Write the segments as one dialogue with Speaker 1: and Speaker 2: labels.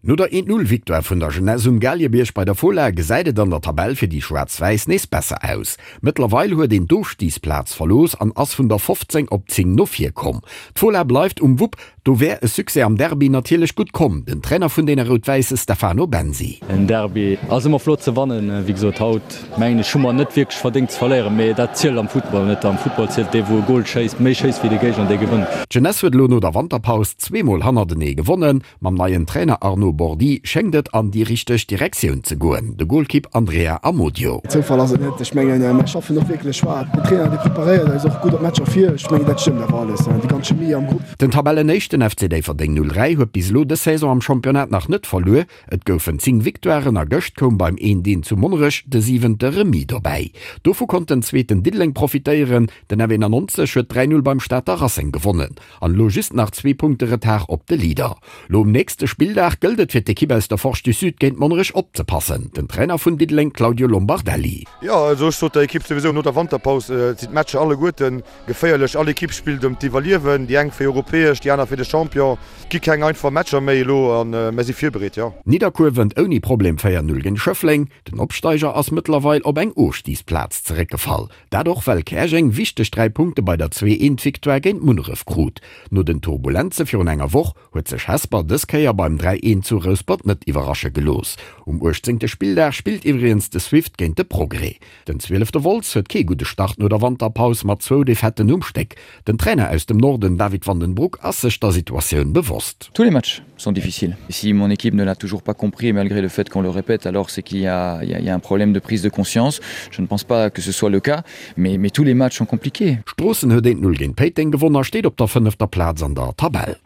Speaker 1: No der 1-0 Victoire vun der Jeunesse um Galiebierg bei der Fola gesäit et an der Tabell fir déi Schwaarz-Wäiss nees besser aus. Mëttlerweil huet een d'Ofstigsplaz verlooss an ass vun der 15 op 10 no vir komm. D'Fola bleift um Wupp, do wär e Succès am Derby natierlech gutt komm. Den Trainer vun deene Rout-Wäisse Stefano Bensi.
Speaker 2: En Derby ass ëmmer flott ze wannen. Wéi gesot, haut mengen ech hu mer net wierklech verdéngt ze verléieren, mee dat zielt am Futtball net. Am Futtball zielt dee wou e Gol schéisst, méi schéisst wéi de Géigner, dee gewënnt.
Speaker 1: D'Jeunesse huet elo no der Wanterpaus zweemol hannertenee gewonnen. Mam neien Trainer Arnaud Bordi schéngt et an déi richteg Direktioun ze goen, de Golkipp Andrea Amodio.
Speaker 3: Zoufall ass et net. Ech mengen, mär schaffen och wierklech schwaer. Den Trainer, dee preparéiert eis och gutt op d'Matcher vir. Ech mengen, dat stëmmt awer alles, déi ganz Chemie am Grupp.
Speaker 1: Den Tabellenéischten FC Déifferdeng 03 huet bis elo dës Saison am Championnat nach net verluer. Et goufen 10 Victoiren a gëscht koum beim 1-1 zu Monnerech de siwente Remis dobäi. Dovu konnt den zweeten Diddeleng profitéieren. Den F91 huet 3, 0 beim Stater Racing gewonnen. An elo just nach zwee Punkte Retard op de Leader. Lo um nächste Spilldag gëllt et fir d'Ekipp aus der Forge du Sud géint Monnerech opzepassen. Den Trainer vun Diddeleng Claudio Lombardelli.
Speaker 4: Jo, also ech sot der Ekipp souwisou no der Wanterpaus, et sinn d'Matcher alleguerten geféierlech. All Ekipp spillt ëm d'Iwwerliewen, déi eng fir europäesch, déi aner fir de Champion. Et gi keng einfach Matcher méi elo a mir si virbereet, jo.
Speaker 1: Nidderkuer wënnt ouni Problem 4, 0 géint Schëffleng. Den Opsteiger ass mëttlerweil op eng Ofstigsplaz zeréckgefall. Dat och well Käerjeng wichteg 3 Punkte bei der Zwee-Eent-Victoire géint Munneref krut. No den Turbulenze virun enger Woch huet sech Hesper dës Kéier beim 3 Eent zu Rouspert net iwwerrasche gelooss. Um 18. Spilldag spillt iwwregens de Swift géint de Progrès. Den zwielefte Wolz huet kee gudde Start no der Wanterpaus mat zwou Defaitten um Stéck. Den Trainer aus dem Norden David van den Broek ass sech der Situatioun bewosst.
Speaker 5: Tous les matchs sont difficiles. Si mon équipe ne l'a toujours pas compris malgré le fait qu'on le répète, alors c'est qu'il y a, il y a, il y a un problème de prise de conscience. Je ne pense pas que ce soit le cas, mais, mais tous les matchs sont compliqués.
Speaker 1: Stroossen huet 1, 0 géint Péiteng gewonn a steet op der fënnefter Plaz an der Tabell.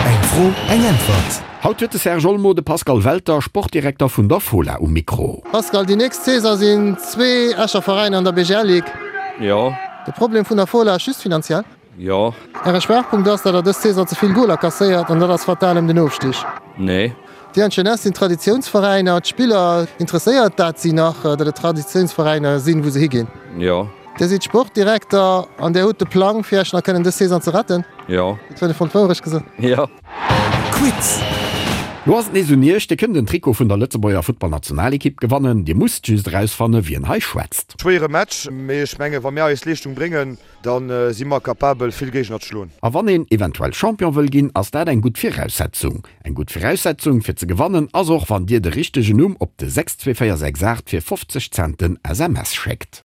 Speaker 6: Eng Fro, eng Äntwert.
Speaker 1: Haut huet de Serge Olmo de Pascal Welter, Sportdirekter vun der Fola um Mikro.
Speaker 7: Pascal, déi nächst Saison sinn zwee Escher Veräiner an der BGL Ligue.
Speaker 8: Jo.
Speaker 7: De Problem vun der Fola ass just finanziell?
Speaker 8: Jo.
Speaker 7: Äre Schwaachpunkt ass, datt der dës Saison ze vill Goler kasséiert an dat ass fatal ëm den Ofstig.
Speaker 8: Nee.
Speaker 7: Dir an d'Jeunesse sinn Traditiounsveräiner. D'Spiller, interesséiert dat si nach, datt et Traditiounsveräiner sinn, wou se higinn?
Speaker 8: Jo.
Speaker 7: Dir sidd Sportdirekter an Dir hutt de Plang, fir Esch nach kënnen dës Saison ze retten?
Speaker 8: Jo.
Speaker 7: Dat huet e fonnt Wourecht gesot.
Speaker 8: Jo.
Speaker 6: Quiz.
Speaker 1: Lo ass et nees un Iech, Dir kënnt en Trikot vun der Lëtzebuerger Futtballnationalekipp gewannen. Dir musst just erausfanne wien hei schwätzt.
Speaker 4: Schwéiere Match, mee ech menge wa mir eis Leeschtung bréngen, Da si mer capabel vill Géigner ze schloen.
Speaker 1: A wann een eventuell Champion wëll ginn, ass dat eng gutt Viraussetzung. Eng gutt Viraussetzung fir ze gewannen ass och wann dir de richtegen Numm op de 62468 fir 50 Cent den SMS schéckt.